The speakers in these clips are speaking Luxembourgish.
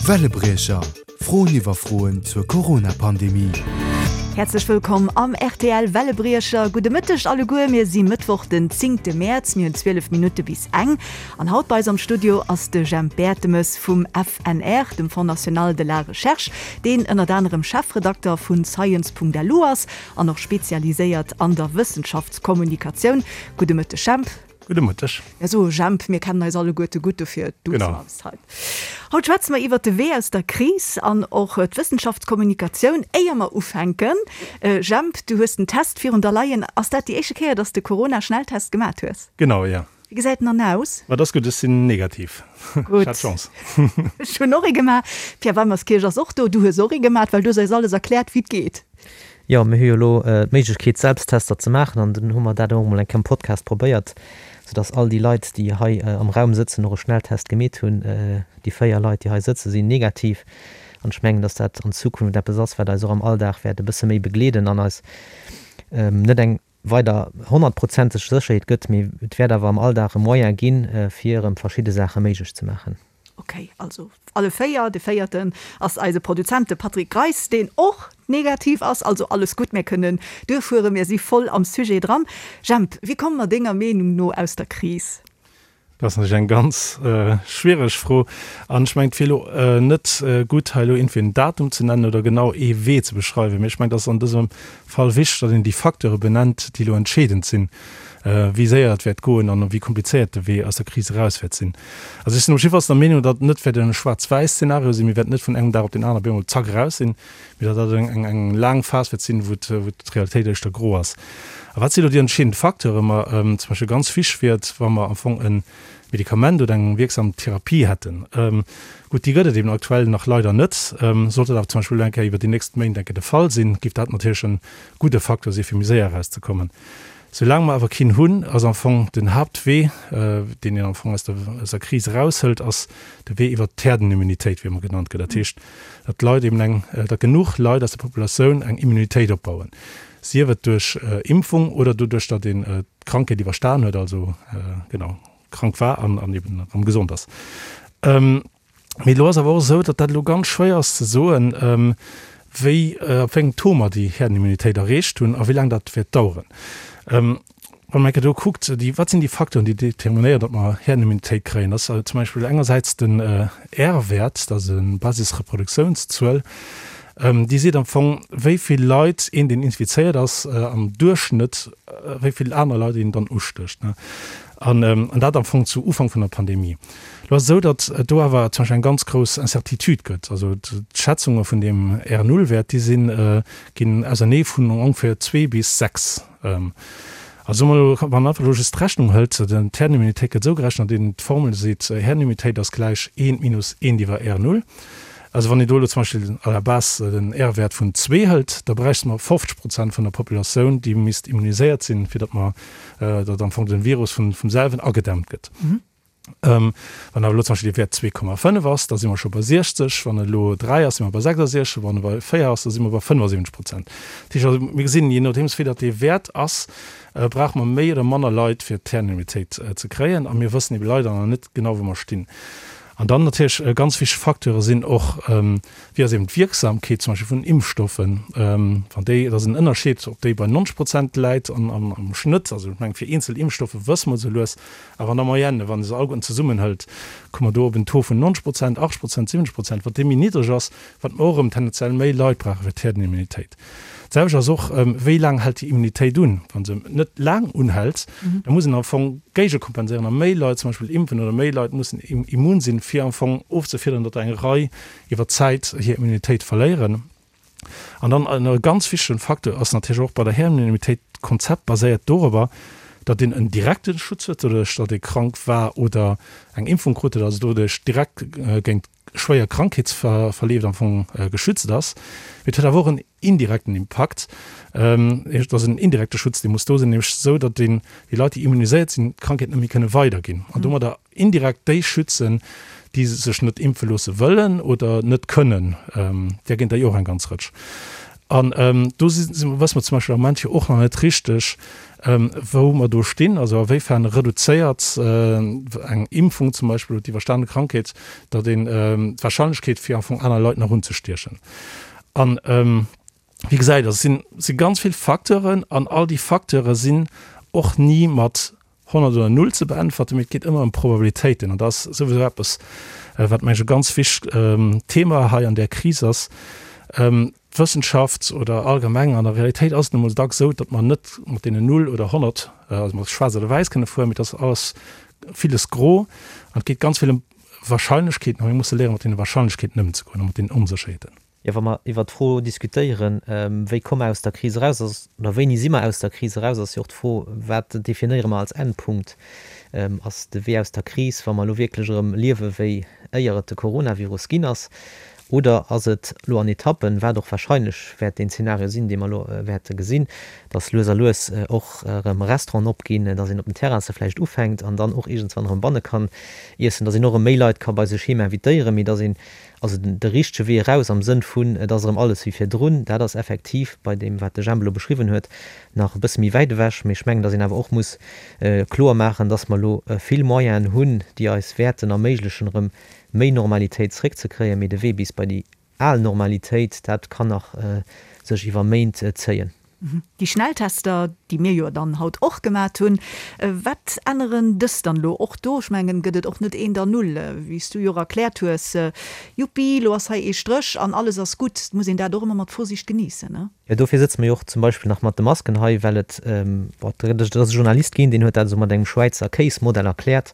Wellebriecher, Froen iwwer Froen zur Corona-Pandemie. Häerzlech wëllkomm am rtl Wellebriecher. Gudde Mëtteg alleguer. Mir si Mëttwoch den zéngte Mäerz, mir hunn 12 Minutte bis eng. An haut bei eis am Studio ass de Jemp Bertemes vum FNR, dem Fonds National de la Recherche, deen ënnert anerem Chefredakter vu Science.lu ass an och spezialiséiert an der Wëssenschaftskommunikatioun. Gudde Mëtteg Jemp. Gudde Mëtteg. Mir soe Jemp, mir kennen eis alleguerte gutt, dofir duze mer eis hei. Haut schwätze mer iwwert de Wee aus der Kris an och d'Wëssenschaftskommunikatioun. Éier mer ufänken, Jemp, du hues den Test virun der leien. Ass dat déi éischte Kéier, dass de Corona-Schnelltest gemat hues? Genau, jo. Wéi gesäit en dann aus? Ma et ass gutt, ech sinn negativ. Gutt. Ech hat Chance. Ech hunn och ee gemaach. Pierre Weimerskirch ass och do. Du hues och ee gemaat, well du hues eis alles erkläert, wéi et geet. Jo, mir hu jo elo d'Méiglechkeet, Selbsttester ze maachen an dunn hu mer dat och emol eng Kéier am Podcast probéiert, soudass all déi Leit, déi hei am Raum sëtzen, och e Schnelltest gemeet hunn. Déi 4 Leit, déi hei sëtzen, sinn negativ an ech mengen, dass dat an Zukunft eppes ass, wat eis och am Alldag wäert e bësse méi begleeden an eis net eng weider honnertprozenteg Sécherheet gëtt, mee et wäert awer am Alldag e Moyen ginn, fir erëm verschidde Saache méiglech ze maachen. Ok, also alle 4. De véierten ass eise Produzent, de Patrick Greis, deen och negativ ass. Also alles gutt, mir kënnen duerfueren, mir si voll am Sujet dran. Jemp, wéi komme mer denger Meenung no aus der Kris? Dat ass natierlech eng ganz schwiereg Fro. An ech mengen, et wier elo net gutt, hei elo iergendwéi en Datum ze nennen oder genau ee Wee ze beschreiwen. Mee ech mengen, et ass an dësem Fall wichteg, datt een déi Facteure benennt, déi elo entscheedend sinn, wéi séier et wäert goen an wéi komplizéiert de Wee aus der Kris eraus wäert sinn. Also ech sinn op jiddefalls der Meenung, datt et net wäert e Schwaarz-wäiss-Zeenario sinn. Mir wäerten net vun engem Dag op deen aneren op eemol zack eraus sinn, mee datt dat eng laang Phas wäert sinn, wou d'Realitéit éischter gro ass. A wat si elo déi entscheedend Facteure? Ma zum Beispill ganz wichteg wier et, wa mer am Fong e Medikament oder eng wierksam Therapie hätten. Gutt, déi gëtt et eben aktuell nach leider net. Sollt dat awer zum Beispill elo eng Kéier iwwer déi nächst Méint eng Kéier de Fall sinn, géif dat natierlech e gudde Facteur si fir méi séier erauszekommen. Soulaang mer awer keen hunn, ass am Fong den Haaptwee, deen een am Fong aus der aus der Kris eraushëlt, ass de Wee iwwert d'Herdenimmunitéit, wéi ëmmer genannt gëtt. Dat heescht, datt d'Leit eben eng, datt genuch Leit aus der Populatioun eng Immunitéit opbauen, sief et duerch Impfung oder doduerch, datt een d'Krankheet iwwerstan huet, also genau krank war an an eben erëm gesond ass. Mee elo ass awer och esou, datt dat elo ganz schwéier ass ze soen, wéi, op wéi engem Taux mer déi Herdenimmunitéit erreecht hunn a wéi laang dat wäert daueren. Wann een eng Kéier do kuckt, déi, wat sinn déi Facteuren, déi determinéieren, datt mer Herdenimmunitéit kréien? Dat ass zum Beispill engersäits den R-Wäert, dat ass e Basisreproduktiounszuel, déi seet am Fong, wéi vill Leit een, deen infizéiert ass, am Duerchschnëtt, wéi vill aner Leit een dann ustécht. An dat am Fong zu Ufank vun der Pandemie. Lo ass et esou, datt et do awer zum Beispill eng ganz grouss Incertitude gëtt. Also d'Schätzunge vun deem R-Null-Wäert, déi sinn, ginn ausernee vun ongeféier zwee bis sechs. Also soe mer elo, wann een einfach elo just d'Rechnung hëlt, d'Herdenimmunitéit gëtt esou gerechent, datt een d'Formel seet, Herdenimmunitéit ass gläich eent minus eent iwwer R-Null. Also wann een do elo zum Beispill à la base den R-Wäert vun zwee hëlt, da bräichte mer 50 Prozent vun der Populatioun, déi misst immuniséiert sinn, fir datt mer, datt am Fong den Virus vun vum selwen agedämmt gëtt. Wann awer elo zum Beispill dee Wäert 2,5 ass, da si mer scho bei 60, wann et elo 3 ass, si mer bei 66, wann e bei 4 ass, da si mer bei 75 Prozent. Dat heescht also, mir gesinn, jee nodeems wéi datt dee Wäert ass, brauche mer méi oder manner Leit, fir d'Herdenimmunitéit ze kréien. A mir wëssen ebe leider nach net genau, wou mer stinn. An dann natierlech ganz wichteg Facteure sinn och, wéi ass eben d'Wierksamkeet zum Beispill vun Impfstoffen. Wann déi, et ass en Ënnerscheed, ob déi bei 90 Prozent läit an am Schnëtt, also ech mengen fir eenzel Impfstoffe wësse mer esou lues, awer an der Moyenne, wann ee se alleguerten zesummenhëlt, komme mer do op en Taux vun 90 Prozent, 80 Prozent, 70 Prozent. Wat dee méi niddreg ass, wat mer och erëm tendenziell méi Leit brauche fir d'Herdenimmunitéit. D'selwecht ass och, wéi laang hält déi Immunitéit un? Wa se net laang unhält, da muss een am Fong géigekompenséieren a méi Leit zum Beispill impfen oder méi Leit mussen immun sinn, fir am Fong ofzefiederen, datt eng Rei iwwer d'Zäit hir Immunitéit verléieren. An dann e ganz wichtegen Facteur ass natierlech och bei der Herdenimmunitéit, d'Konzept baséiert dorobber, datt een en direkte Schutz huet, doduerch datt ee krank war oder eng Impfung krut huet, also doduerch direkt géint schwéier Krankheetsverleef am Fong geschützt ass. Mee et huet awer och en indirekten Impakt. Et ass en indirekte Schutz, dee muss do sinn, nämlech esou, datt een déi Leit, déi immuniséiert sinn, d'Krankheet net méi kënne weiderginn an domadder indirekt déi schützen, déi sech net impfe loosse wëllen oder net kënnen. Där ginn der jo och eng ganz Rëtsch. An do si wësse mer zum Beispill am Moment jo och nach net richteg, wou mer do stinn, also a wéifern reduzéiert eng Impfung zum Beispill oder d'iwwerstane Krankheet, datt een d'Wahrscheinlechkeet fir am Fong aner Leit nach unzestiechen. An wéi gesäit, also et si ganz vill Facteuren an all déi Facteure sinn och ni mat 100 oder Null ze beäntwerten, mee et geet ëmmer ëm Probabilitéiten. An dat ass souwisou eppes, wat, meng ech, e ganz wichtegt Thema hei an där Kris ass. D'Wëssenschaft oder allgemeng an der Realitéit ass et nu mol dacks esou, datt mer net mat deenen Null oder 100, also mat Schwaarz oder Wäiss kënne fueren, mee et ass alles villes gro an et geet ganz vill ëm Wahrscheinlechkeeten a mir musse léieren, mat deene Wahrscheinlechkeeten ëmzegoen a mat deenen Onsécherheeten. Jo, wa mer iwwert d'Fro diskutéieren, wéi komme mer aus der Kris eraus, ass, oder wéini si mer aus der Kris eraus, ass jo och d'Fro, wat definéiere mer als Endpunkt? Ass de Wee aus der Kris, wa mer elo wierklech erëm liewe wéi éier et de Coronavirus ginn ass, oder ass et elo an Etappen, wat och wahrscheinlech wäert deen Zeenario sinn, dee mer elo wäerte gesinn, dass lues a lues och erëm Restauranten opginn, dass een op den Terrasse vläicht ufänkt an dann och iergendswann erëm banne kann iessen, dass een och erëm méi Leit ka bei sech heem invitéieren, mee dass een Also de richtege Wee eraus am Sënn vun et ass erëm alles wéi virdrun, dat ass effektiv bei deem, wat de Jemp elo beschriwwen huet, nach e bësse méi wäit ewech. Mee ech mengen, datt een awer och muss kloer maachen, datt mer elo vill Moyenen hunn, déi eis wäerten erméiglechen, erëm méi Normalitéit zréckzekréien. Mee de Wee bis bei déi al Normalitéit, dat kann nach sech iwwer Méint zéien. Déi Schnelltester, déi mir jo dann haut och gemat hunn, wat änneren dës dann elo? Och do, ech mengen, gëtt et och net eent an null, wéi s du jo och erkläert hues, Juppi, elo ass hei ee Stréch an alles ass gutt. Et muss een dat och ëmmer mat Vorsicht geniessen, ne? Jo, dofir sëtze mer jo och zum Beispill nach mat de Masken hei, well et, bon, et ass e Journalist ginn, deen huet dat esou mat engem Schwäizer Kéismodell erkläert,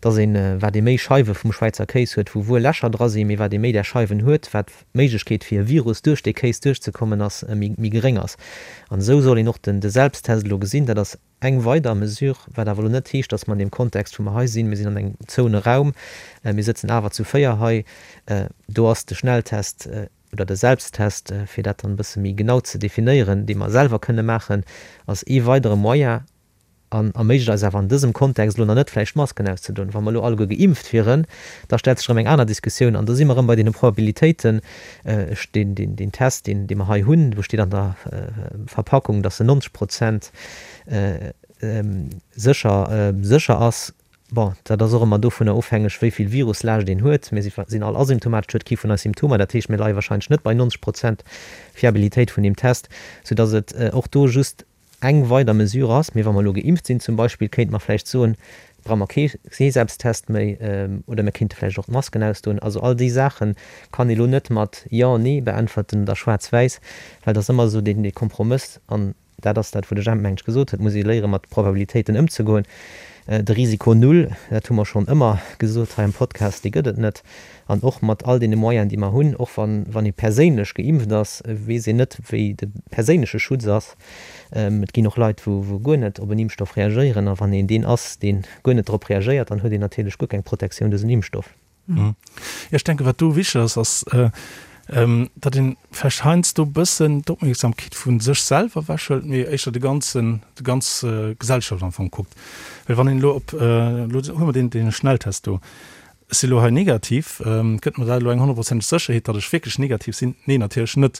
dass een, wat ee méi Scheiwe vum Schwäizer Kéis huet, wou wuel Lächer dra sinn, mee wat ee méi där Scheiwen huet, wat d'Méiglechkeet fir e Virus duerch dee Kéis duerchzekommen ass, méi geréng ass. An esou soll een och de Selbsttest elo gesinn. Dat ass eng weider Mesure, wat awer elo net heescht, datt mer an deem Kontext, wou mer hei sinn, mir sinn an engem zouene Raum, mir sëtzen awer zu 4 hei, do ass de Schnelltest oder de Selbsttest, fir dat dann e bësse méi genau ze definéieren, dee mer selwer kënne maachen, ass ee weidere Moyen. An erméiglecht eis awer an dësem Kontext elo nach net vläicht d'Masken auszedoen. Wa mer elo alleguer geimpft wieren, da stellt sech erëm eng aner Diskussioun an do si mer erëm bei deene Probabilitéiten. Ech, deen, deen, deen Test, deen, dee mer hei hunn, do steet an der Verpackung, dass en 90 Prozent sécher, sécher ass. Bon, dat ass och ëmmer dovunner ofhängeg, wéi vill Viruslaascht een huet. Mir si, sinn all asymptomatesch, huet kee vun eis Symptomer. Dat heescht, mir leie wahrscheinlech net bei 90 Prozent Fiabilitéit vun deem Test, soudass et och do just eng weider Mesure ass, mee wa mer elo geimpft sinn zum Beispill, kéinte mer vläicht soen, brauche mer kee Selbsttest méi oder mir kéinte vläicht och d'Masken ausdoen. Also all déi Saache kann ee elo net mat Jo, Nee beäntwerten oder schwaarz-wäiss, well et ass ëmmer esou deen Kompromëss an dat ass dat, wou de Jemp, mengen ech, gesot huet, et muss ee léiere mat Probabilitéiten ëmzegoen. De Risiko null, dat hu mer schonn ëmmer gesot hei am Podcast, dee gëtt et net. An och mat all deene Moyenen, déi mer hunn, och wann, wann ee perséinlech geimpft ass, weess een net, wéi de perséinleche Schutz ass. Et ginn och Leit, wou, wou guer net op en Impfstoff reagéieren. A wann een deen ass, dee guer net drop reagéiert, dann huet een natierlech guer keng Protektioun duerch en Impfstoff. Jo, ech denken, wat do wichteg ass, ass, datt een vläicht heiansdo e bëssen d'Opmierksamkeet vu sech selwer ewechhëlt, mee éischter de ganzen, déi ganz Gesellschaft am Fong kuckt. Well wann een elo op, elo hu mer deen, dee Schnelltest do, Ech si lo hei negativ. Gëtt mer dat elo eng honnertprozenteg Sécherheet, datt ech wierklech negativ sinn? Nee, natierlech net.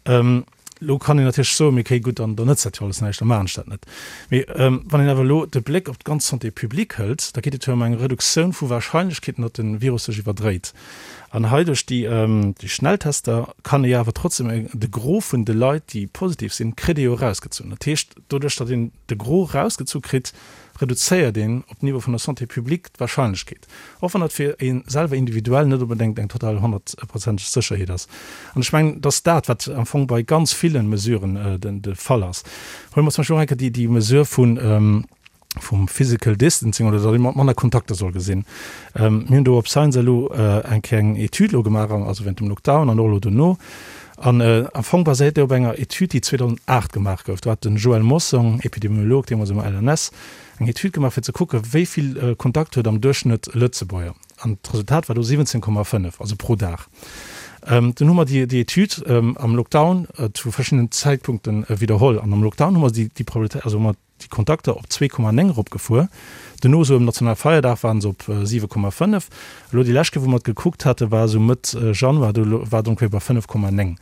Elo kann een natierlech soen, mee okay, gutt, dann nëtzt dat jo alles näischt, da maachen ech dat net. Mee wann een awer elo de Bléck op d'ganz Santé publique hëlt, da geet et jo ëm eng Reduktioun vu Warscheinlechkeeten, datt de Virus sech iwwerdréit. An hei duerch déi Schnelltester kann ee jo awer trotzdem de Gros vun de Leit, déi positiv sinn, kritt ee jo erausgezunn. Dat heescht, doduerch, datt een de Gros erausgezu kritt, reduzéiert een op Niveau vun der Santé publique d'Wahrscheinlechkeet, och wann dat fir ee selwer individuell net onbedéngt eng total honnertprozenteg Sécherheet ass. An ech mengen, dass dat, wat am Fong bei ganz ville Mesuren de Fall ass. Huele mer zum Beispill och eng Kéier déi Mesure vun, vum Physical Distancing oder datt ee manner Kontakter soll gesinn. Mir hunn do op Science elo eng Kéier eng Etüd elo gemaach, also während dem Lockdown an och elo dono. An am Fong baséiert déi op enger Etüd, déi 2008 gemaach gouf. Do hat den Joël Mossong, Epidemiolog deemools um LNS, eng Etüd gemaach, fir ze kucken, wéi vill Kontakt huet am Duerchschnëtt e Lëtzebuerger. An d'Resultat war do 17,5, also pro Dag. Dunn hu mer déi Etüd am Lockdown zu verschiddenen Zäitpunkte widderholl. An am Lockdown hu mer déi Probabilitéit, also hu mer déi Kontakter op 2,9 eropgefuer. Dono esou ëm Nationalfeierdag waren se op 7,5. Elo déi lescht Kéier wou mer et gekuckt hate war esou Mëtt Januar, do war et ongeféier bei 5,9.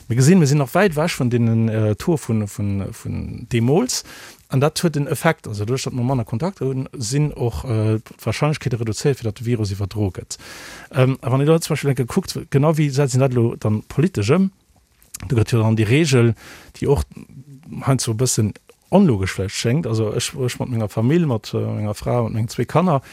Mir gesinn, mir sinn nach wäit ewech vun deenen Taux vun deemools. An dat huet en Effekt. Also doduerch, datt mer manner Kontakter hunn, sinn och d'Warscheinlechkeete reduzéiert, fir datt de Virus iwwerdroe gëtt. A wann een elo zum Beispill eng Kéier kuckt, genau wéi setzt een dat elo dann politesch ëm? Do gëtt jo dann déi Reegel, déi och heiansdo e bëssen onlogesch vläicht schéngt, also ech, ech mat menger Famill, mat menger Fra, mat mengen zwee Kanner,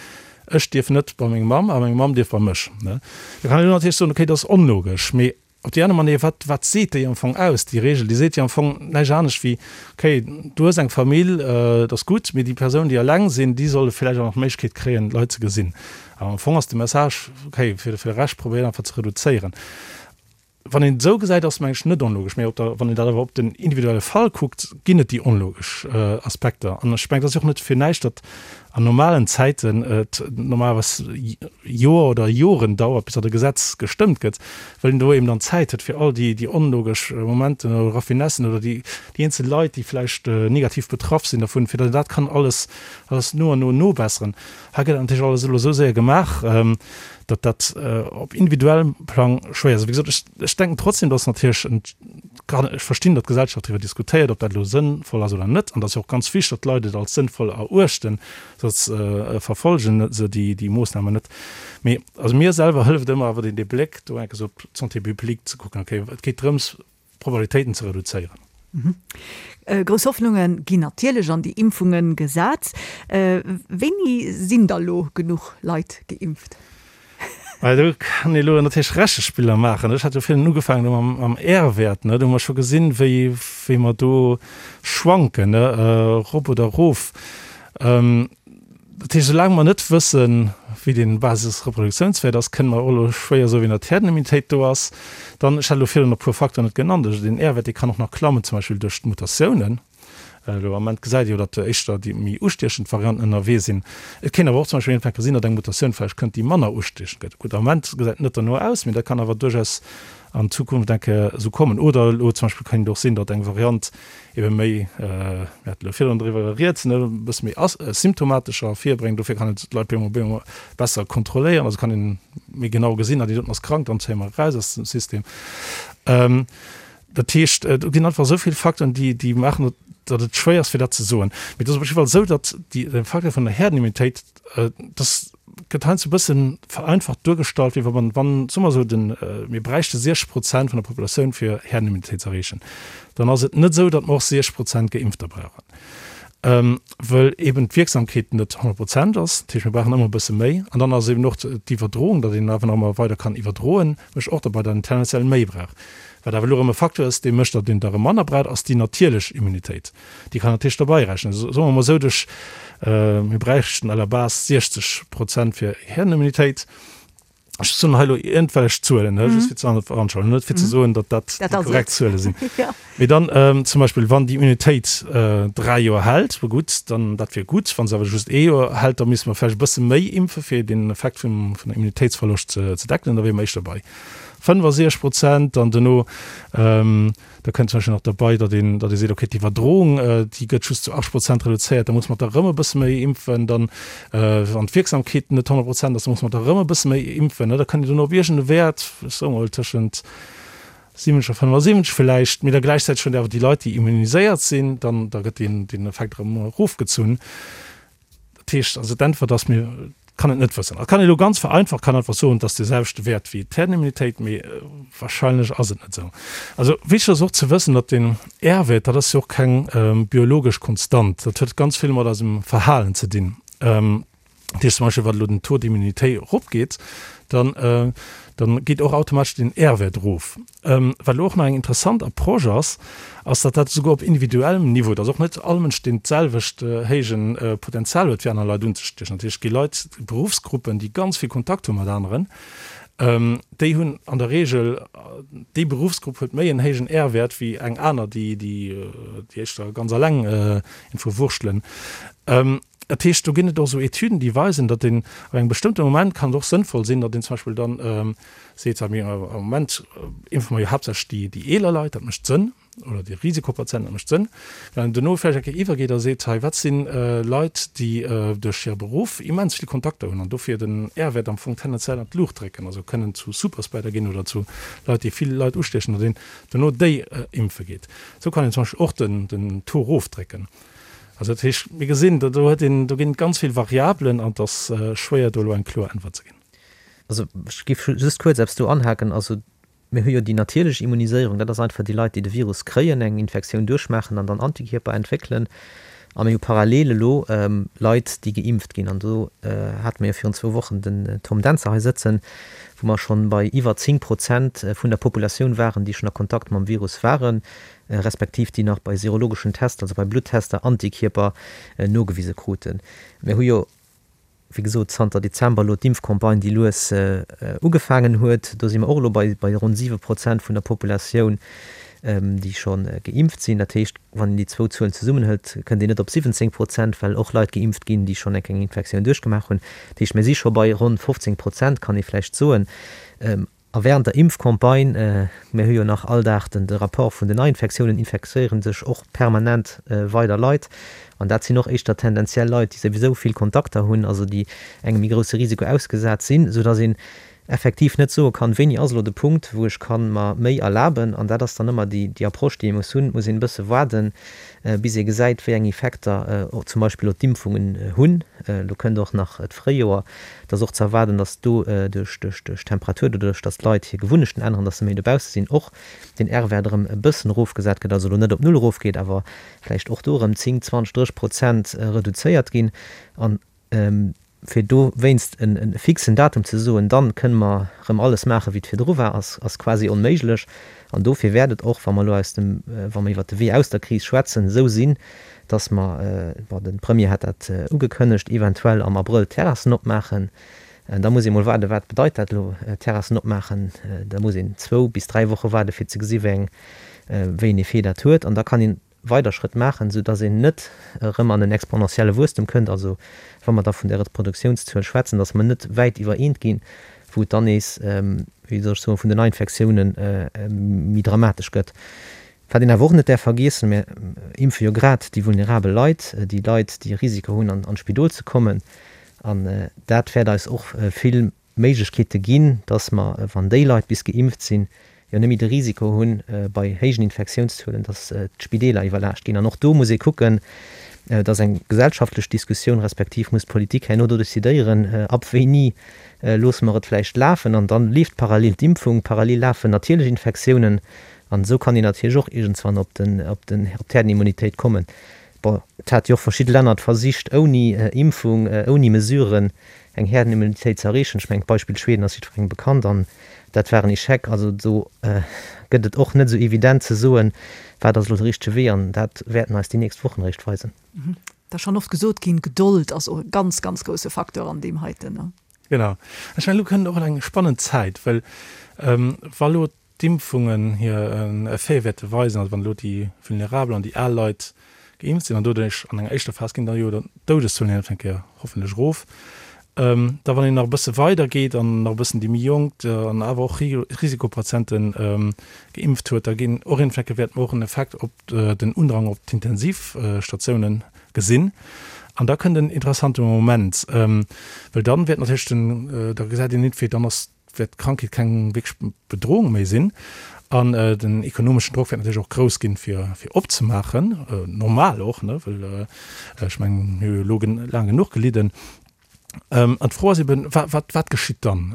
ech dierf net bei meng Mamm a meng Mamm dierf bei mech. Ne? Da kann een elo natierlech soen, okay, dat ass onlogesch, mee op déi aner Manéier, wat, wat seet déi am Fong aus, déi Reegel? Déi seet jo am Fong näischt anescht wéi, okay, du hues eng Famill, dat ass gutt, mee déi Persounen, déi eleng sinn, déi solle vläicht och nach d'Méiglechkeet kréien, Leit ze gesinn. Awer am Fong ass de Message, okay, fir de Rescht probéiert einfach ze reduzéieren. Wann een et esou gesäit, ass et mengen ech net onlogesch, mä op der, wann een dat awer op den individuelle Fall kuckt, ginn et déi onlogesch Aspekter. An ech mengen, et ass jo och net fir näischt, datt an normalen Zäiten et normalerweis Joer oder Joren dauert, bis datt e Gesetz gestëmmt gëtt, well een do eben dann Zäit huet, fir all déi, déi onlogesch Momenten oder Raffinessen oder déi, déi eenzel Leit, déi vläicht negativ betraff sinn dervun, fir datt een dat kann alles, alles no an no nobesseren. Hei gëtt dat natierlech alles elo esou séier gemaach, datt dat op individuellem Plang schwéier ass. Wéi gesot, ech, ech denken trotzdem, datt natierlech en, kann ech verstinn, datt d'Gesellschaft driwwer diskutéiert, ob dat elo sënnvoll ass oder net. An dat ass jo och ganz wichteg, datt d'Leit et als sënnvoll eruechten, soss verfolge se déi, déi Moossnamen net. Mee also mir selwer hëlleft ëmmer awer deen, dee Bléck do enk esou op d'Santé publique ze kucken, okay, et geet drëms, Probabilitéiten ze reduzéieren. Grouss Hoffnunge ginn natierlech an déi Impfunge gesat. Wéini sinn da lo genuch Leit geimpft? Well do kann ee lo natierlech Rechespiller maachen. Ech hat jo virun ugefaangen do mam R-Wäert, ne, do hu mer scho gesinn, wéi wéi mer do schwanken, ne, erop oder erof. Dat heescht, soulaang mer net wëssen, wéi dee Basisreproduktiounswäert ass, kënne mer och elo schwéier soen, wéi nach d'Herdenimmunitéit do ass. Dann, ech hat elo virun e puer Facteuren net genannt, also deen R-Wäert, dee kann och nach klammen, zum Beispill duerch d'Mutatiounen. Elo am Ament gesäit ee jo, datt éischter déi méi ustiechend Varianten ënnerwee sinn. Et kéint awer och zum Beispill iergendwann gesinn, datt eng Mutatioun vläicht kënnt, déi manner ustiechend gëtt. Gutt, am Ament gesäit et net derno aus, mee dat kann awer duerchaus an Zukunft eng Kéier esou kommen. Oder elo zum Beispill kéint et och sinn, datt eng Variant ebe méi, mir haten elo virdrun driwwer rieds, ne, e bësse méi asymptomatescher ervirbréngt. Dofir kann een d'Leit op eemol besser kontrolléieren, also kann een méi genau gesinn, ah déi doten ass krank, dann zéie mer eraus aus dem System. Dat heescht, do ginn einfach esou vill Facteuren, déi, déi maachen, datt et schwéier ass fir dat ze soen. Mee et ass op jidde Fall esou, datt déi, de Facteur vun der Herdenimmunitéit, dass gëtt heiansdo e bëssen vereinfacht duergestallt, wéi wa man, wann, soe mer esou, den, mir bräichte 60 Prozent vun der Populatioun fir Herdenimmunitéit ze erreechen, dann ass et net esou, datt mer och 60 Prozent Geimpfter brauchen, wëll eben d'Wierksamkeet net 100 Prozent ass. Dat heescht, mir brauchen ëmmer e bësse méi. An dann ass eben och d'Iwwerdroung, datt een awer nach ëmmer weider kann iwwerdroen, mécht och derbei, datt een tendenziell méi brauch. Wat awer elo erëm e Facteur ass, dee mécht, datt een der erëm manner braucht, ass déi natierlech Immunitéit. Déi kann natierlech derbei rechnen. Soe mer emol esou, duerch, mir bräichten à la base 60 Prozent fir Herdenimmunitéit. Ech soen hei elo iergendwellech Zuelen, ne, just fir ze veranschaulichen, net fir ze soen, datt dat déi korrekt Zuele sinn. Mee dann zum Beispill, wann déi Immunitéit dräi Joer hält, bon gutt, dann dat wier gutt. Wa se awer just ee Joer hält, da misste mer vläicht e bësse méi impfe fir den Effekt vum, vun der Immunitéitsverloscht ze, ze deckelen. Da wiere mer éischter bei 65 Prozent. Dann duerno, Da kënnt zum Beispill nach derbei, datt een, datt ee seet, okay, d'Iwwerdroung, déi gëtt just zu 80 Prozent reduzéiert, da muss mer der erëm e bësse méi impfen. Dann, wann d'Wierksamkeet net 100 Prozent ass, da muss mer der erëm e bësse méi impfen. Da kënnt een duerno op iergend e Wäert, ech soe mol tëschent 70 a 75 villäicht, mee da gläichzäiteg huet een awer déi Leit, déi immuniséiert sinn, dann, da gëtt deen, deen Effekt erëm erofgezunn. Dat heescht also, d'Äntwert ass, mir kann et net wëssen. Et kann ee elo ganz vereinfacht kann einfach soen, et ass dee selwechte Wäert wéi d'Herdenimmunitéit, mee wahrscheinlech ass et net esou. Also wichteg ass och ze wëssen, datt den R-Wäert, dat ass jo och keng biologesch Konstant, dat huet ganz vill mat eisem Verhalen ze dinn. Dat heescht zum Beispill, wann elo den Taux d'immunité eropgeet, dann dann geet och automatesch den R-Wäert erof. Wat elo och nach eng interessant Approche ass, ass, datt dat esouguer op individuellem Niveau, datt och net all Mënsch deen d'selwecht héije Potenzial huet, fir aner Leit unzestiechen. Dat heescht, et gi Leit, Beruffsgruppen, déi ganz vill Kontakt hu mat aneren, déi hunn an der Reegel, déi Beruffsgrupp huet méi en héijen R-Wäert wéi eng aner, déi éischter ganz alleng irgendwou wurschtelen. Dat heescht, do ginn et och esou Etüden, déi weisen, datt een ab engem bestëmmte Moment kann et och sënnvoll sinn, datt een zum Beispill dann seet, mir am Moment impfe mer jo haaptsächlech déi, déi eeler Leit, dat mécht Sënn, oder déi Risikopatienten, dat mécht Sënn. Wann een duerno vläicht eng Kéier iwwergeet a seet, hei wat si Leit, déi duerch hire Beruff immens vill Kontakter hunn an dofir den R-Wäert am Fong tendenziell an d'Luucht drécken, also kënnen zu Superspreader ginn oder zu Leit, déi vill Leit ustiechen, datt een duerno déi impfe geet. Esou kann een zum Beispill och den, den Taux erofdrécken. Also dat heescht, mir gesinn, do huet een, do ginn et ganz vill Variabelen an et ass schwéier do elo eng kloer Äntwert ze ginn. Also ech géif just kuerz eppes do anhaken. Also mir hu jo déi natierlech Immuniséierung, dat ass einfach déi Leit, déi de Virus kréien, eng Infektioun duerchmaachen an dann Antikierper entwéckelen. A mir hu parallel elo Leit, déi geimpft ginn. An do hate mir jo virun zwou Wochen den Tom Dentzer hei sëtzen, wou mer schonn bei iwwer 10 Prozent vun der Populatioun waren, déi schonn a Kontakt mam Virus waren. respektiv déi nach bei serologeschen Tester, also bei Bluttester, Antikierper nogewise kruten. Mir hu jo, wéi gesot, zanter Dezember elo d'Impfcampagne, déi lues ugefaangen huet. Do si mer och elo bei ronn 7 Prozent vun der Populatioun, déi scho geimpft sinn. Dat heescht, wann een déi zwou Zuelen zesummenhëlt, kënnt een net op 17 Prozent, well och Leit geimpft ginn, déi schonn eng Infektioun duerchgemaach hunn. Dat heescht, mir si scho bei ronn 15 Prozent, kann ee vläicht soen. A während der Impfcampagne, mir hu jo nach all Dag den de Rapport vun den Neiinfektiounen, infektéiere sech och permanent weider Leit. An dat sinn och éischter tendenziell Leit, déi souwisou vill Kontakter hunn, also déi engem méi grousse Risiko ausgesat sinn, soudass een effektiv net soe kann, wéini ass elo de Punkt, wou ech ka mer méi erlaben. An dat ass dann ëmmer déi déi Approche, déi ee muss hunn. Et muss een e bësse waarden, bis ee gesäit, wéi eng Effekter zum Beispill elo d'Impfungen hunn. Elo kënnt och nach d'Fréijoer. Et ass och ze erwaarden, datt do duerch d'Temperatur, doduerch datt d'Leit hir Gewunnechten änneren, datt se méi dobausse sinn, och den R-Wäert erëm e bëssen erofgesat gëtt, also elo net op null erofgeet, awer vläicht och do erëm 10, 20, 30 Prozent reduzéiert ginn. A fir dowéinst e fixen Datum ze soen, dann kënne mer erëm alles maachen, wéi et virdru war, ass quasi onméiglech. An dofir wäert et och, wa mer elo aus dem, wa mer iwwert de Wee aus der Kris schwätzen, esou sinn, dass mer, bon, de Premier hat dat ugekënnegt, eventuell am Abrëll d'Terrassen opmaachen. Da muss ee mol waarden, wat bedeit dat elo, Terrassen opmaachen? Da muss een zwou bis dräi Woche waarden, fir ze gesi wéi eng, wéi en Effet dat huet. An da kann een weider Schrëtt maachen, soudass een net erëm an en exponentielle Wuesstem kënnt, also wa mer da vun där Reproduktiounszuel schwätzen, dass mer net wäit iwwer eent ginn, wou et dann nees, wéi soll ech soen, vun den Neiinfektiounen méi dramatesch gëtt. Wat een awer och net däerf vergiessen, mir impfe jo grad déi vulnerabel Leit, déi Leit, déi e Risiko hunn, an d'Spidol ze kommen, an dat wäert eis och vill Méiglechkeete ginn, dass mer, wann déi Leit bis geimpft sinn, jo net méi de Risiko hunn, bei héijen Infektiounszuelen, dass d'Spideeler iwwerlaascht ginn. An och do muss ee kucken, et ass eng gesellschaftlech Diskussioun, respektiv muss d'Politik herno do decidéieren, ab wéini loosse mer et vläicht lafen. An da leeft parallel d'Impfung, parallel lafen natierlech Infektiounen. An esou kann een natierlech och iergendswann op d'Herdenimmunitéit kommen. Bon, et hat jo och verschidde Länner et versicht, ouni Impfung, ouni Mesuren eng Herdenimmunitéit ze erreechen. Ech mengen, d'Beispill Schweden ass jiddwerengem bekannt an dat war en Echec. Also do gëtt et och net esou evident ze soen, wat ass elo de richtege Wee an dat wäerten eis déi nächst Wochen eréischt weisen. Et ass schonn oft gesot ginn, Gedold ass och e ganz, ganz grousse Facteur an deem heiten. Genau. Ech mengen, elo kënnt och eng spannend Zäit, well wa elo d'Impfungen hir Effete wäerte weisen, also wann elo déi vulnerabel an déi al Leit geimpft sinn an doduerch an enger éischter Phas ginn da jo d'Doudeszuelen eng Kéier hoffentlech erof, da wann een nach e bësse weider geet an nach e bëssen déi méi Jonk an awer och Risikopatiente geimpft huet, da ginn och eng Kéier wäerte mer och en Effekt op den Undrang op d'Intensivstatiounen gesinn. An da kënnt en interessante Moment, well dann wäert natierlech den, da gesäit een entweder dann ass wäert d'Krankheet keng wierklech Bedrohung méi sinn an den ekonomeschen Drock wäert natierlech och grouss ginn, fir fir opzemaachen, normal och, ne, well ech mengen, mir hu jo elo laang genuch gelidden. An d'Fro ass eben, wa wat wat geschitt dann?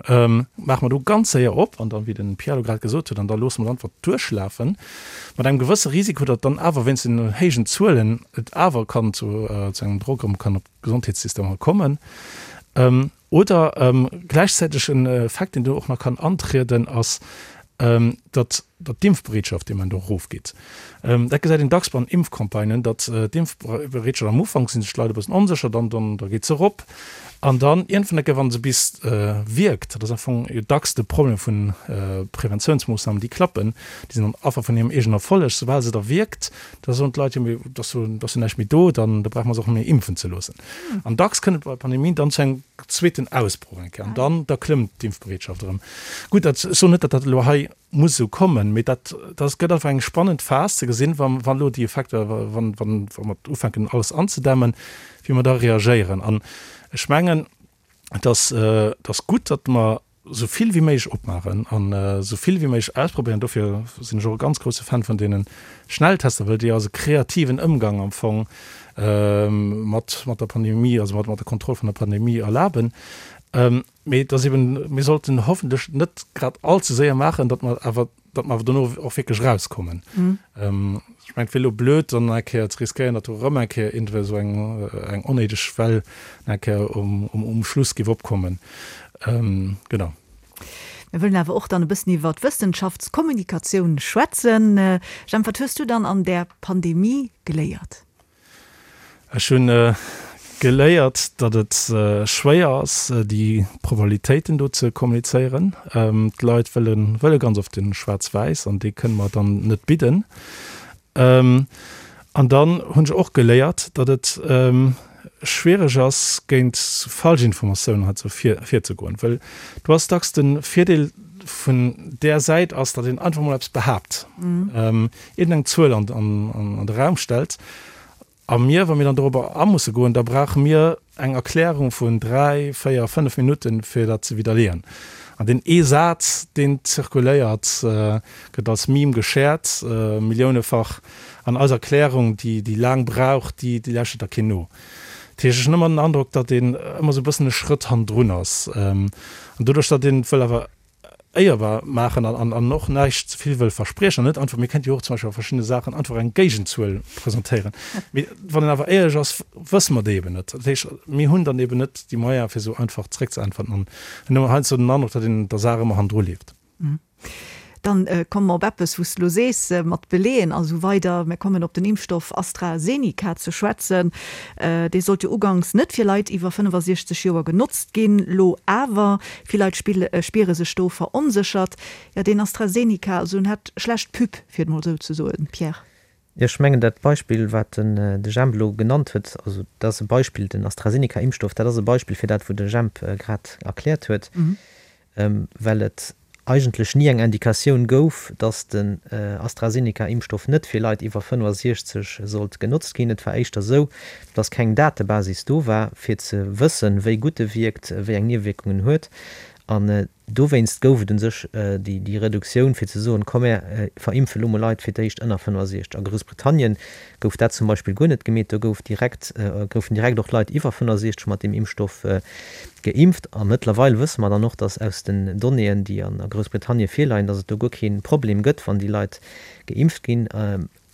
Maache mer do ganz séier op an dann, wéi de Pierre elo grad gesot huet, an da loosse mer et einfach duerchlafen, mat engem gewësse Risiko, datt dann awer wéinst den héijen Zuelen et awer kann zu zu engem Drock erëm kann op d'Gesondheetssystemer kommen. Oder gläichzäiteg en Effekt, deen do och nach kann antrieden, ass,. datt datt d'Impfbereetschaft dee Moment och erofgeet. Dat gesäit een dacks bei Impfcampagnen, datt d'Impfbereetschaft am Ufank si sech d'Leit e bëssen onsécher, dann dann da geet se erop an dann iergendwann eng Kéier, wa se bis wierkt, dat ass am Fong jo dacks de Problem vu Preventiounsmoossnamen, déi klappen, déi sinn dann Affer vun hirem eegenen Erfolleg, soubal se da wierkt, da soen d'Leit, jo mee et ass jo et ass jo näischt méi do, dann da brauche mer se och net méi impfen ze loossen. An dacks kënnt et bei Pandemien dann zu engem zweeten Ausbroch eng Kéier an dann da klëmmt d'Impfbereetschaft erëm. Gutt, dat, ech soen net, datt dat elo hei muss esou kommen, mee dat, dat gëtt einfach eng spannend Phas ze gesinn, wa wann elo déi Effekter, wann wann wa mer ufänken alles anzedämmen, wéi mer da reagéieren. An ech mengen, et ass, et ass gutt, datt mer esou vill wéi méiglech opmaachen an esou vill wéi méiglech ausprobéieren. Dofir sinn ech och e ganz grousse Fan vun deene Schnelltester, well déi eis e kreativen Ëmgang am Fong mat mat der Pandemie, also mat mat der Kontroll vun der Pandemie erlaben. Mee et ass eben, mir sollten hoffentlech net grad all ze séier maachen, datt mer awer, datt mer awer dono och wierklech erauskommen. Ech mengen, et wier elo blöd, dann nach eng Kéier ze riskéieren, datt do erëm eng Kéier iergendwéi esou eng, eng onnéideg Well nach eng Kéier um, um Schluss géif opkommen. Genau. Mir wëllen awer och dann e bëssen iwwer d'Wëssenschaftskommunikatioun schwätzen. Jemp, wat hues du dann an där Pandemie geléiert? Ech hunn geléiert, datt et schwéier ass, déi Probabilitéiten do ze kommunizéieren. D'Leit wëlle wëlle ganz oft den Schwaarz-Wäiss an dee kënne mer dann net bidden. An dann hunn ech och geléiert, datt et schwiereg ass, géint Falschinformatiounen hei ze virzegoen, well do ass dacks de Virdeel vun där Säit ass, datt een einfach mol eppes behaapt. Iergendeng Zuel an de Raum stellt, a mir, wa mir dann dorobber a musse goen, da brauche mir eng Erklärung vun dräi, véier, fënnef Minutten, fir dat ze widderleeën. An deen ee Saz, deen zirkuléiert, gëtt als Meme geshared, milliounefach, an eis Erklärung, déi déi laang brauch, déi lauschtert da keen no. Dat heescht, ech hunn ëmmer den Androck, datt een ëmmer esou e bëssen e Schrëtt hannendrun ass. An doduerch, datt een wëll awer éierbar maachen an an och näischt ze vill wëll verspriechen an net einfach, mir kéinte jo och zum Beispill bei verschiddene Saachen einfach eng Géigenzuel presentéieren, mee wann een awer éierlech ass, wësse mer déi eben net. Dat heescht, mir hunn dann eben net déi Moyene fir esou einfach zréckzeäntwerten an hunn ëmmer heiansdo den Androck, datt een der Saach ëmmer hannendru leeft. Dann komme mer op eppes, wou s de elo sees, mat Beleeën a sou weider. Mir kommen op den Impfstoff AstraZeneca ze schwätzen. Dee sollt jo uganks net fir Leit iwwer 65 Joer genotzt ginn, lo awer. Vill Leit spiere sech do veronséchert. Jo, deen AstraZeneca, also en hat schlecht Pub, fir et mol esou ze soen, Pierre. Jo, ech mengen dat Beispill, wat den de Jemp elo genannt huet, also dat ass e Beispill, den AstraZeneca-Impfstoff, dat ass e Beispill fir dat, wou de Jemp grad erkläert huet, well et eigentlech ni eng Indikatioun gouf, datt den AstraZeneca-Impfstoff net fir Leit iwwer 65 sollt genotzt ginn. Et war éischter esou, datt keng Datebasis do war, fir ze wëssen, wéi gutt e wierkt, wéi eng Niewewierkungen en huet. An dowéinst gouf et u sech déi Reduktioun, fir ze soen, komm mär verimpfe lo mol Leit fir d'éischt ënner 65. A Groussbritannien gouf dat zum Beispill guer net gemeet, do gouf direkt, goufen direkt och Leit iwwer 65 mat deem Impfstoff geimpft. A mëttlerweil wësse mer dann och, datt aus den Donnéeën, déi a Groussbritannien virleien, datt et do guer kee Problem gëtt, wann déi Leit geimpft ginn.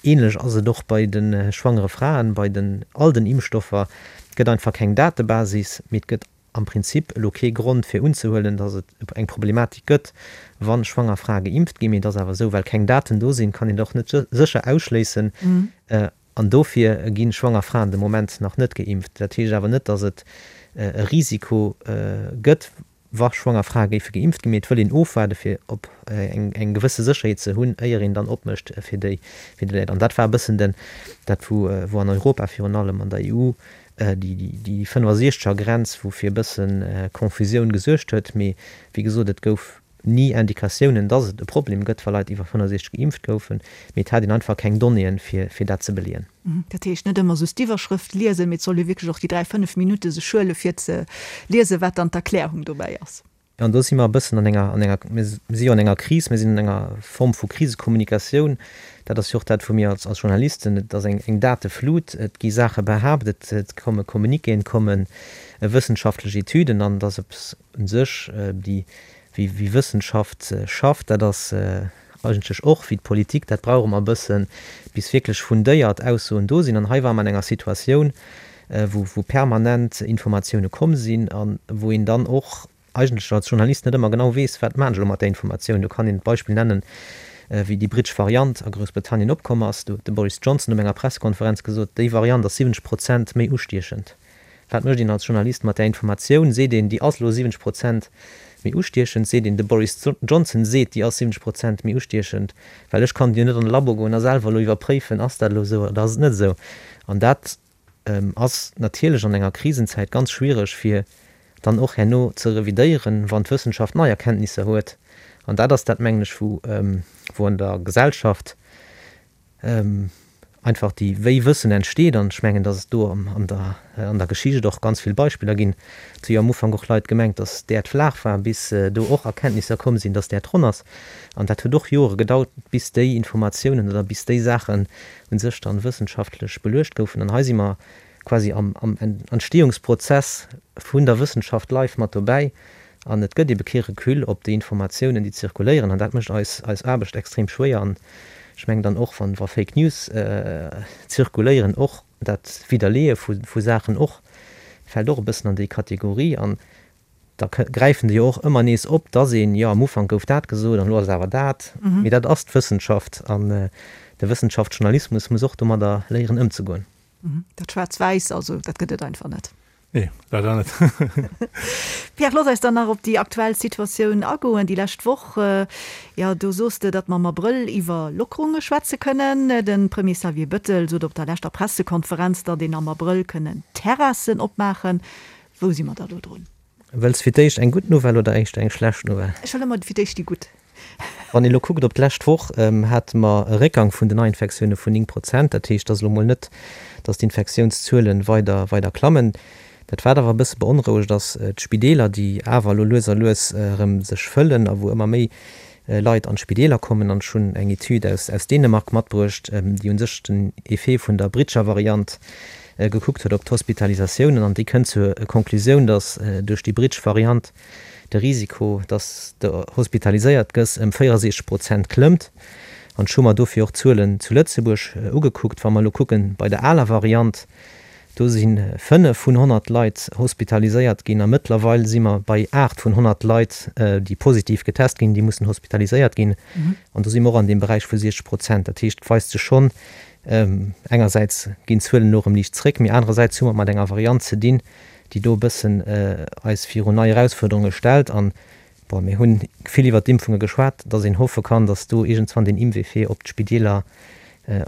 Ähnlech ass et och bei de schwangere Fraen, bei den all den Impfstoffer. Et gëtt einfach keng Datebasis, mee et gëtt am Prinzip elo kee Grond fir unzehuelen, datt et eng Problematik gëtt, wa schwanger Frae geimpft ginn. Mee et ass awer esou, well keng Daten do sinn, kann een et och net sécher ausschléissen. An dofir gi schwanger Fraen de Moment nach net geimpft. Dat heescht awer net, datt et e Risiko gëtt, wa schwanger Frae géife geimpft ginn. Mee et wëll een ofwaarde fir op eng gewësse Sécherheet ze hunn, éier een dann opmécht fir déi Leit. An dat war e bëssen den, dat wou an Europa virun allem an der EU déi 65 er Grenz, wou fir e bësse Confusioun gesuergt huet. Mee wéi gesot, et gouf ni Indikatiounen, dass et e Problem gëtt, wa Leit iwwer 65 geimpft goufen. Mee et hat een einfach keng Donnéeën, fir dat ze beleeën. Dat heescht, net ëmmer just d'Iwwerschrëft liesen, mee et soll ee wierklech och déi 3, 5 Minutte sech huele fir ze liesen, wat dann d'Erklärung dobäi ass. An do si mer e bëssen an enger, an enger, mir si jo an enger Kris, mir sinn an enger Form vu Krisekommunikatioun. Dat ass jo och dat, wou mir als, als Journalisten, et ass eng, eng Dateflut, et gi Saache behaapt, et, et komme Communiquéen, et komme wëssenschaftlech Etüden an et ass eppes u sech, déi, wéi, wéi Wëssenschaft schafft, dat ass eigentlech och wéi d'Politik, dat brauch ëmmer e bëssen, bis wierklech fundéiert Aussoen do sinn. An hei ware mer an enger Situatioun, wou, wou permanent Informatioune komm sinn a wou een dann och. eigentlech als Journalist net ëmmer genau weess, wat maan ech elo mat där Informatioun. Do kann een d'Beispill nennen, wéi déi brittesch Variant a Groussbritannien opkomm ass. Do huet de Boris Johnson op enger Pressekonferenz gesot, déi Variant ass 70 Prozent méi ustiechend. Wat mécht een als Journalist mat där Informatioun? Seet een, déi ass elo 70 Prozent méi ustiechend? Seet een, de Boris Johnson seet, déi ass 70 Prozent méi ustiechend? Well ech kann jo net an de Labo goen a selwer elo iwwerpréifen, ass dat elo esou oder ass et net esou? An dat ass natierlech an enger Krisenzäit ganz schwiereg, fir dann och herno ze revidéieren, wann d'Wëssenschaft nei Erkenntnisser huet. An dat ass dat, mengen ech, wou wou an der Gesellschaft einfach déi wéi Wëssen entsteet. An ech mengen, datt et do an der an der Geschicht och ganz vill Beispiller ginn. Et hu jo am Ufank och Leit gemengt, datt d'Äerd flaach war, bis do och Erkenntnisser komm sinn, datt d'Äerd ronn ass. An dat huet och Jore gedauert, bis déi Informatiounen oder bis déi Saachen u sech dann wëssenschaftlech beluecht goufen. An hei si mer quasi am Entstehungsprozess vun der Wëssenschaft live mat dobäi an et gëtt ebe kee Recul op déi Informatiounen, déi zirkuléieren an dat mécht eis eis Aarbecht extrem schwéier. An ech mengen dann och, wann wa Fake News zirkuléieren, och dat Widderleeë vu vu Saachen och fält och e bëssen an déi Kategorie. An da gräifen déi jo och ëmmer nees op, dass een, jo am Ufank gouf dat gesot an elo ass et awer dat. Mee dat ass d'Wëssenschaft an de Wëssenschaftsjournalismus muss och domadder léieren ëmzegoen. Dat Schwaarz-Wäiss, also dat gëtt et einfach net. Nee, leider net. Pierre, looss eis dann nach op déi aktuell Situatioun agoen. Déi lescht Woch, jo, do soos de, datt mer am Abrëll iwwer Lockerunge schwätze kënnen. De Premier Xavier Bettel sot op der leschter Pressekonferenz, datt een am Abrëll kënnen Terrassen opmaachen. Wou si mer da lo drun? Wëlls fir d'éischt eng gutt Nouvelle oder éischter eng schlecht Nouvelle? Ech wëll ëmmer fir d'éischt déi gutt. Wann ee lo kuckt op d'lescht Woch, hate mer e Réckgang vun den Neiinfektioune vun 9 Prozent. Dat heescht, et ass elo mol net, datt d'Infektiounszuele weider, weider klammen. Dat wat awer e bësse beonrouegt ass, d'Spideeler, déi awer elo lues a lues erëm sech fëllen a wou ëmmer méi Leit an d'Spideeler kommen. An ech hunn eng Etüd aus, aus Dänemark matbruecht, déi u sech den Effet vun der britscher Variant gekuckt huet op d'Hospitalisatiounen. An déi kënnt zur Konklusioun, datt duerch déi britsch Variant de Risiko, datt s de hospitaliséiert gëss, ëm 64 Prozent klëmmt. An ech hu mer dofir och d'Zuelen zu Lëtzebuerg ugekuckt. Wa mer elo kucken, bei der aler Variant, do si 5 vun 100 Leit hospitaliséiert ginn a mëttlerweil si mer bei 8 vun 100 Leit, déi positiv getest ginn, déi mussen hospitaliséiert ginn. An do si mer och an deem Beräich vu 60 Prozent. Dat heescht, et weist sech schonn, engersäits ginn d'Zuelen elo erëm liicht zréck, mee anerersäits hu mer et mat enger Variant ze dinn, déi do e bëssen eis virun nei Erausfuerderunge stellt. An, bon, mir hunn vill iwwert d'Impfunge geschwat, dass een hoffe kann, dass do iergendswann deen Impfeffet op d'Spideeler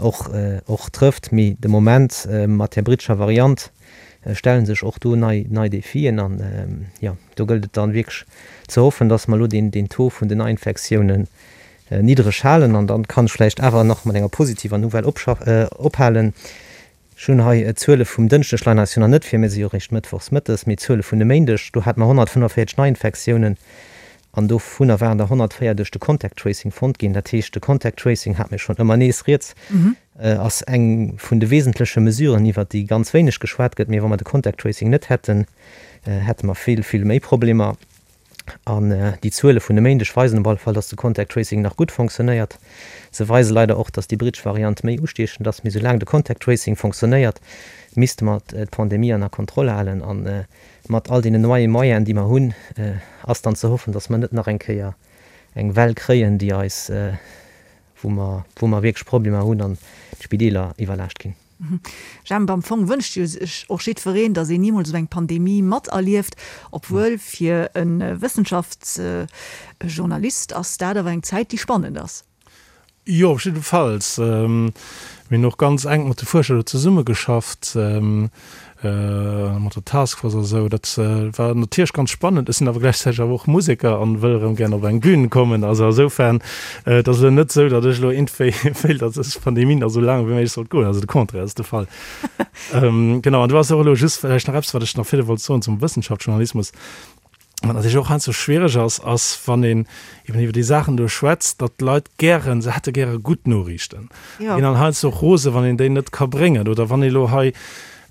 och, och trëfft. Mee de Moment mat där brittescher Variant stelle sech och do nei, nei Defien. An, jo, do gëllt et dann wierklech ze hoffen, dass mer elo deen, deen Taux vun den Neiinfektiounen niddreg halen. An dann kann ech vläicht awer nach mat enger positiver Nouvelle ophalen. Ech hunn hei d'Zuele vum Dënschdeg, leien eis jo nach net vir, mir si jo eréischt mëttwochs mëttes, mee d'Zuele vun e Méindeg, do hate mer 145 Neiinfektiounen an dovunner waren der 104 duerch de Contact Tracing fonnt ginn. Dat heescht, de Contact Tracing, hate mir schonn ëmmer nees rieds, ass eng vun de wesentleche Mesuren, iwwert déi ganz wéineg geschwat gëtt. Mee wa mer de Contact Tracing net hätten, hätte mer vill, vill méi Problemer. An déi Zuele vun e Méindeg weisen op alle Fall, dass de Contact Tracing nach gutt fonctionnéiert. Se weise leider och, dass déi brittesch Variant méi ustiechend ass. Mee soulaang de Contact Tracing fonctionnéiert, misste mer d'Pandemie ënner Kontroll halen. A mat all deenen neie Moyenen, déi mer hunn, ass dann ze hoffen, dass mer net nach eng Kéier eng Well kréien, déi eis, wou mer, wou mer wierklech Problemer hunn an d'Spideeler iwwerlaascht ginn. Jemp, am Fong wënscht jo sech och jiddwereen, datt een nimools esou eng Pandemie materlieft, obwuel fir e Wëssenschaftsjournalist ass dat awer eng Zäit, déi spannend ass. Jo, op jiddefalls. Mir hunn och ganz enk mat de Fuerscher do zesummegeschafft, mat der Taskforce a sou. Dat war natierlech ganz spannend. Ech sinn awer gläichzäiteg awer och Museker an wëll erëm gären op eng Bühn kommen. Also asoufern, et ass elo net sou, datt ech elo iergendwéi wéilt, datt dës Pandemie nach sou laang wéi méiglech sollt goen. Also de Contraire ass de Fall. Genau, an do ass och elo just vläicht nach eppes, wat ech nach virdu wollt soen zum Wëssenschaftsjournalismus. Wat natierlech och heiansdo schwiereg ass, ass wann een eben iwwer déi Saachen do schwätzt, datt d'Leit gären, se hätte gäre gutt Noriichten, ginn dann heiansdo och rose wann een déi net ka bréngen oder wann ee lo hei,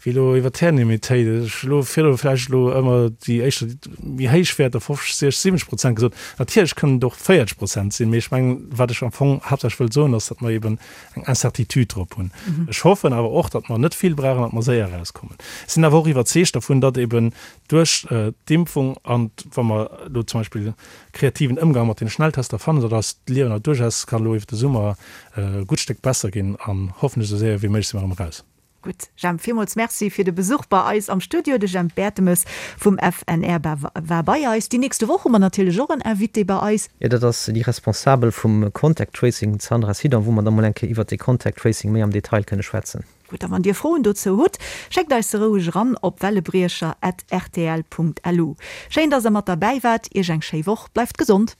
wéi. Wéi elo iwwer d'Häerdenimmunitéit, ech hu elo virdru vläicht elo ëmmer déi éischter méi héich Wäerter, 50, 60, 70 Prozent gesot. Natierlech kënnen et och 40 Prozent sinn, mee ech mengen, wat ech am Fong haaptsächlech wëll soen, ass, datt mer eeben eng Incertitude drop hunn. Ech hoffen awer och, datt mer net vill brauchen, datt mer séier erauskommen. Ech sinn awer och iwwerzeegt dervun, datt eeben duerch d'Impfung an wa mer elo zum Beispill kreativen Ëmgang mat deene Schnelltester fannen, datt eist Liewen awer duerchaus kann elo iwwer de Summer e gutt Stéck besser ginn an hoffentlech esou séier wéi méiglech si mer erëm eraus. Gutt, Jemp, villmools Merci fir de Besuch bei eis am Studio. De Jemp Bertemes vum FNR war bei eis. Déi nächste Woch hu mer natierlech och en Invité bei eis. Jo, dat ass déi Responsabel vum Contact Tracing, d'Sandra Sidon, wou mer da mol eng Kéier iwwert dee Contact Tracing méi am Detail kënne schwätzen. Gutt, a wann Dir Froen dozou hutt, schéckt eis se roueg eran op wellebriecher at rtl punkt lu. Schéin, dass Der mat derbäi waart. Iech eng schéi Woch, bleift gesond!